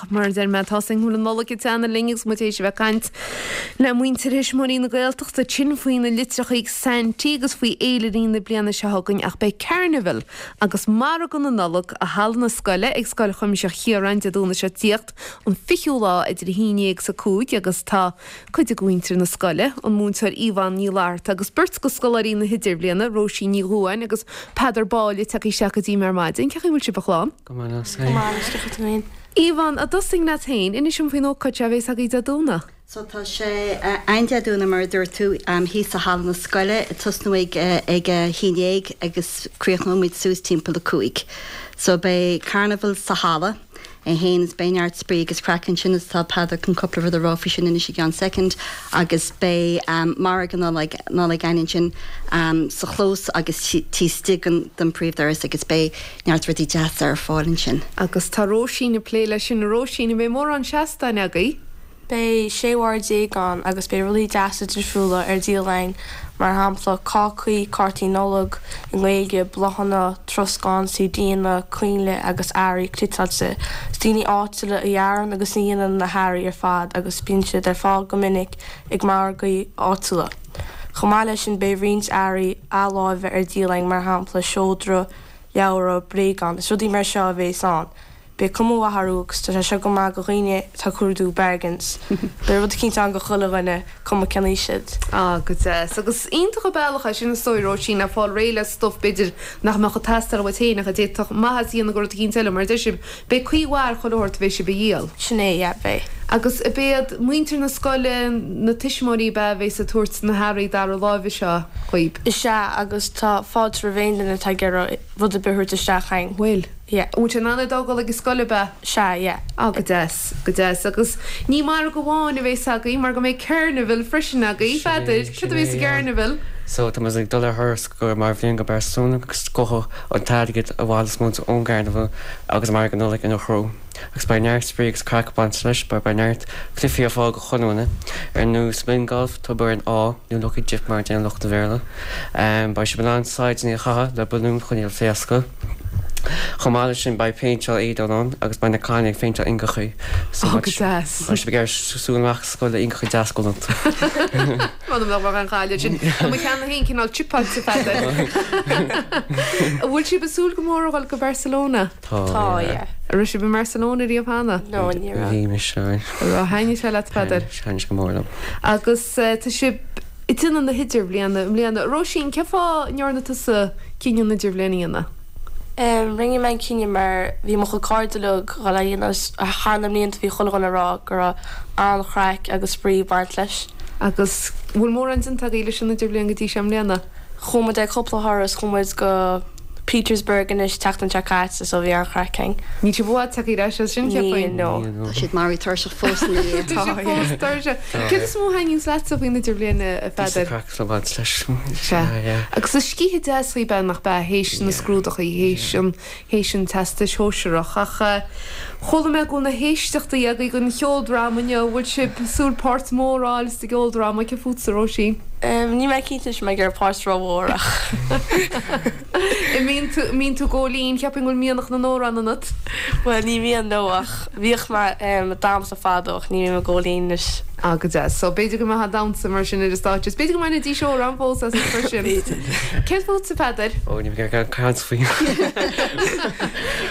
Ach mar a deir mé, tá a fhios againn go bhfuil an Nollaig ag teannadh linn agus muid théis a bheith ag caint le muintir Thuismitheoirí na Gaeltachta ansin faoi na litreacha ag Saintí agus faoi fhéilirí na bliana seo chugainn ach beidh Carnival agus Margadh na Nollag i Halla na Scoile ag Scoil Chuimsitheach Chiaráin Dé Domhnaigh seo ag tíocht, an 20ú lá idir 11 is 5 agus tá cuid de mhuintir na scoile, an múinteoir Yvonne Ní Fhlatharta agus beirt de scoláirí na hIdirbhliana, Róisín Ní Dhubháin agus Peadar Báille tagtha isteach go dtí mé ar maidin. Cén chaoi a bhfuil sibh a chlann? Go maith leat féin. Go maith leis do chuid féin. Yvonne, a dtosóinn leat féin, inis dom faoin ócáid seo a bhéas agaibh Dé Domhnaigh. So tá sé ann Dé Domhnaigh mar a dúirt tú, thíos i halla na scoile, ag tosnú ag ag a haon dhéag agus críochnóidh muid suas timpeall a cúig. So beidh carnival sa halla. é fhéin is beidh neart spraoi agus craic ansin is tá Peadar chun cúpla rud a rá faoi sin anois i gceann soicind agus beidh margadh Nollag Nollag againn ansin sa chlós agus taobh istigh den den príomhdhoras agus beidh neart rudaí deasa ar fáil ansin. Agus tá Róisín ag plé leis sin. A Róisín, an mbeidh mórán seastáin agaibh? Beidh 16 bhord ann agus beidh rudaí deasa difriúla ar díol againn, mar shampla cácaí, cártaí Nollag i nGaeilge, bláthanna, troscán, CDanna, coinnle agus earraí cniotáilte. Is daoine áitiúla a dhearann agus a dhéanann na hearraí ar fad agus bíonn siad ar fáil go minic ag margaí áitiúla. Chomh maith leis sin beidh roinnt earraí athláimhe ar díol againn mar shampla seodra, leabhra, bréagáin. Is rudaí mar seo a bhéas ann. Beidh cuma mhaith orthu agus tá sé seo go maith do dhaoine atá ag cuardú bargains. Beidh rud eicínt ann do chuile dhuine, cuma cén aois iad. Ah, go deas. Agus iontach an bealach é sin is dóigh, Róisín, le fáil réidh le stuif b'fhéidir nach mbeadh ag teastáil uait féin ach a d'fhéadfadh maitheas a dhéanamh do rud eicínt eile, mar a deir sibh, beidh caoi mhaith ar chuile shórt a bheidh sibh a dhíol. Sin é, yeah, beidh. Agus ab iad muintir na scoile, na tuismitheoirí ab ea a bhéas ag tabhairt na hearraí dara láimhe seo dhaoib? Is ea, agus tá fáilte roimh aon duine atá ag iarraidh rud ar bith a thabhairt isteach chugainn. Bhfuil? Yeah. An bhfuil sé in ann é d'fhágáil ag an scoil ab ea? Sea, yeah. Ah, go deas, go deas. Agus ní margadh amháin a bhéas agaibh mar go mbeidh Carnival freisin agaibh. Peadar, céard a bhéas sa gCarnival? So, tá muid ag dul ar thuras go mar bhliain go Barcelona agus gabhfaidh an t-airgead a bhaileos muid ón gCarnival agus Margadh Nollag ina threo. Agus beidh neart spraoi agus craic ag baint leis mar beidh neart cluichí ar fáil go chuile dhuine, ar nós Mini Golf, Tobar an Ádh, nó Lucky Dip mar a deireann lucht an Bhéarla. Beidh sibh in ann saighdeanna a chaitheamh le balúin chun iad a phléascadh. Chomh maith leis sin beidh péinteáil éadain ann agus beidh na cailíní ag péinteáil ingeachaí so Ó, go deas. beidh sibh ag iarraidh siúl amach as scoil le ingeachaí deas galánta. M'anam nach mbeadh aon chaill air sin. Tá mo cheann féin cineál chipeáilte, a Pheadair. An bhfuil sibh ag súil go mór a dhul go Barcelona? Tá, Tá, yeah. An raibh sibh i mBarcelona riamh cheana? No, ní raibh. Bhí mise ann. An raibh? Thaitnigh sé leat, a Pheadair? Thaitnigh sé go mór liom. Agus tá sibh ag déanamh na hidirbhliana i mbliana. Róisín, cén fáth a ndearna tusa cinneadh an idirbhliain a dhéanamh? Rinne mé an cinneadh mar bhí mo chuid cairde uilig ag dhul á dhéanamh agus thar na mblianta bhí chuile dhuine ag rá go raibh an-chraic agus spraoi ag baint leis. Agus bhfuil mórán déanta agaibh leis an idirbhliain go dtí seo i mbliana? Chuaigh muid ar cúpla thuras, chuaigh muid go Petersburg anois tseachtain seo caite so bhí an-chraic againn. Níl sibh i bhfad tagtha ar ais as sin, cheapfainn. Níl, no. Tá siad maraithe tuirseach fós ina dhiaidh. Tá sibh fós tuirseach. Céard is mó a thaitníonns leatsa faoin idirbhliain, a Pheadair? Píosa craic le baint leis. Sea. Agus is scíth deas í ab ea nach ea, théis na scrúdachaí, théis an, théis an Teastais Shóisearach. Ach chuala mé go bhfuil na héisteachtaí agaibh don cheoldráma inniu. An bhfuil sibh ag súil páirt mhór a fháil sa gceoldráma? Cé fútsa, Róisín? Níl mé cinnte anois an mbeidh ar páirt rómhór ach. An mbíonn tú, an mbíonn tú ag gabháil fhoinn, cheapfainn go bhfuil mianach na n-amhrán ionat. Bhuel, ní bhíonn, no, ach bhíodh mé ag damhsa fadó ach ní bhím ag gabháil fhoinn anois. Ah, go deas. So, b'fhéidir go mbeifeá ag damhsa mar sin ar an stáitse. Is b'fhéidir go mbainfidís amhrán fós asat freisin. B'fhéidir. Céard fútsa, a Pheadair? Ó, ní bheidh ag caint faoi.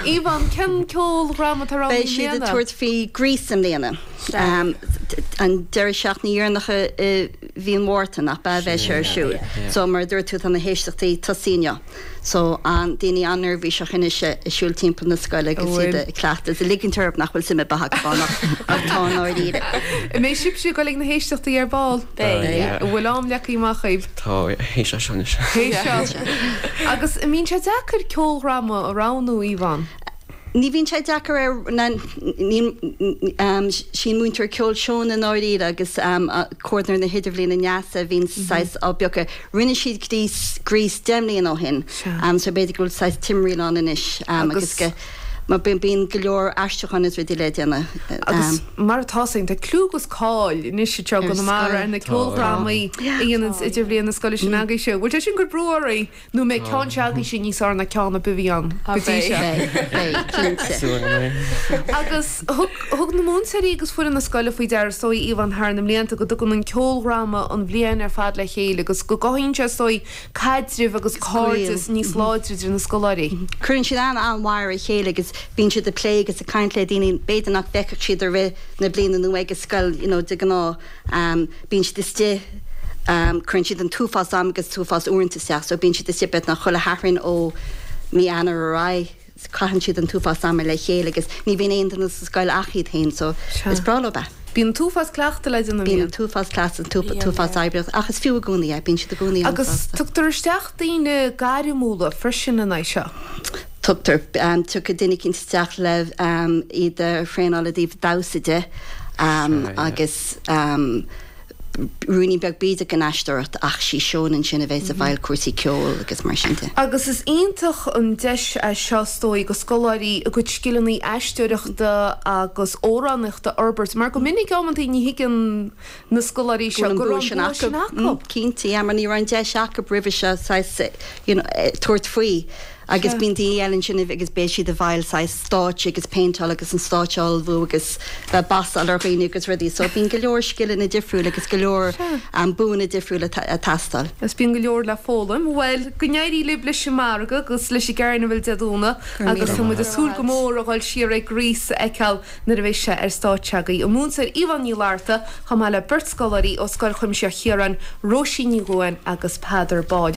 Yvonne, cén ceoldráma atá roghnaithe Beidh i siad ag mbliana? tabhairt faoi Grease i mbliana. An deireadh seachtaine dheireanach i mhí an Mhárta, nach ea, a bheidh sé ar siúl. So, mar a dúirt tú, tá na héisteachtaí tosaithe inniu. So, an, daoine an-neirbhíseach anois ag siúl timpeall na scoile agus iad ag cleachtadh is ag ligint orthu nach bhfuil suim ar bith acu ann ach ach tá i ndáiríre. An mbeidh sibhse ag dul ag na héisteachtaí ar ball? Beidh. Yeah. An bhfuil am leagtha amach agaibh? Tá, théis seo anois. Théis seo. Agus an mbíonn sé deacair ceoldráma a roghnú, Yvonne? Ní bhíonn sé deacair ar na, ní, sí an múinteoir ceoil Shona i ndáiríre agus comhordaitheoir na hidirbhliana Neasa a bhíonn saghas á bpiocadh. Rinne siad Grease, Grease 10 mbliana ó shin so b'fhéidir go bhfuil saghas timthriall ann anois agus go. Mar bíonn go leor aistriúcháin is rudaí le déanamh. Agus mar atá a fhios againn, tá clú agus cáil anois anseo i gConamara ar na ceoldrámaí a dhéananns Idirbhliain na scoile sin agaibhse. Bhfuil sé sin ag cur brú oraibh nó an mbeidh ceann seo agaibhse níos fearr ná ceann ar bith a bhí ann go dtí seo? Beidh, beidh, cinnte. Súil go mbeidh. Agus thug, thug na múinteoirí agus foireann na scoile faoi deara is dóigh, Yvonne, thar na mblianta go dtugann an ceoldráma an bhliain ar fad le chéile agus go gcothaíonn sé is dóigh caidreamh agus cairdeas níos láidre idir na scoláirí. Cuireann siad an-an-mhaith ar a chéile agus bíonn siad ag plé agus ag caint le daoine b'fhéidir nach bhfeicfeadh siad i rith na bliana nó ag an scoil you know de ghnáth. Bíonn siad istigh, cuireann siad an t-uafás am agus t-uafás uaireanta isteach so bíonn siad istigh beagnach chuile Shatharn ó mí Eanáir ar aghaidh. Caitheann siad an t-uafás ama le chéile agus ní bhíonn aon duine sa scoil ach iad féin so is breá leo é. Bíonn an t-uafás cleachtaidh le déanamh. Bíonn an t-uafás cleachtaidh, an t-uafás oibre ach is fiú i gcónaí é, bíonn siad i gcónaí an-sásta. Agus tugtar isteach daoine gairmiúla freisin in aghaidh seo. Tugtar. Tiocfaidh duine eicínt isteach le iad a thraenáil i dtaobh damhsa de agus. Ruainnín beag b'fhéidir den aisteoireacht ach sí Shona ansin a bheas i bhfeighil cúrsaí ceoil agus mar sin de. Agus is iontach an deis é seo is dóigh do scoláirí a gcuid scileanna aisteoireachta agus amhránaíochta a fhorbairt mar go minic amantaí ní thuigeann na scoláirí seo go raibh an bua sin acu. Cinnte, yeah, mar ní raibh an deis acu roimhe seo saghas you know tabhairt faoi. Agus bíonn daoine eile ansin agus beidh siad i bhfeighil saghas stáitse agus péinteáil agus an stáitse a ullmhú agus bheith ag bassáil ar dhaoine agus rudaí. So bíonn go leor scileanna difriúla agus go leor buanna difriúla ag teastáil. Agus bíonn go leor le foghlaim. Bhuel, go n-éirí libh leis an margadh agus leis an gCarnival Dé Domhnaigh agus tá muid ag súil go mór a dhul siar ag Grease a fheiceáil nuair a bheidh sé ar stáitse agaibh. An múinteoir Yvonne Ní Fhlatharta chomh maith le beirt scoláirí ó Scoil Chuimsitheach Chiaráin, Róisín Ní Dhuáin agus Peadar Ball.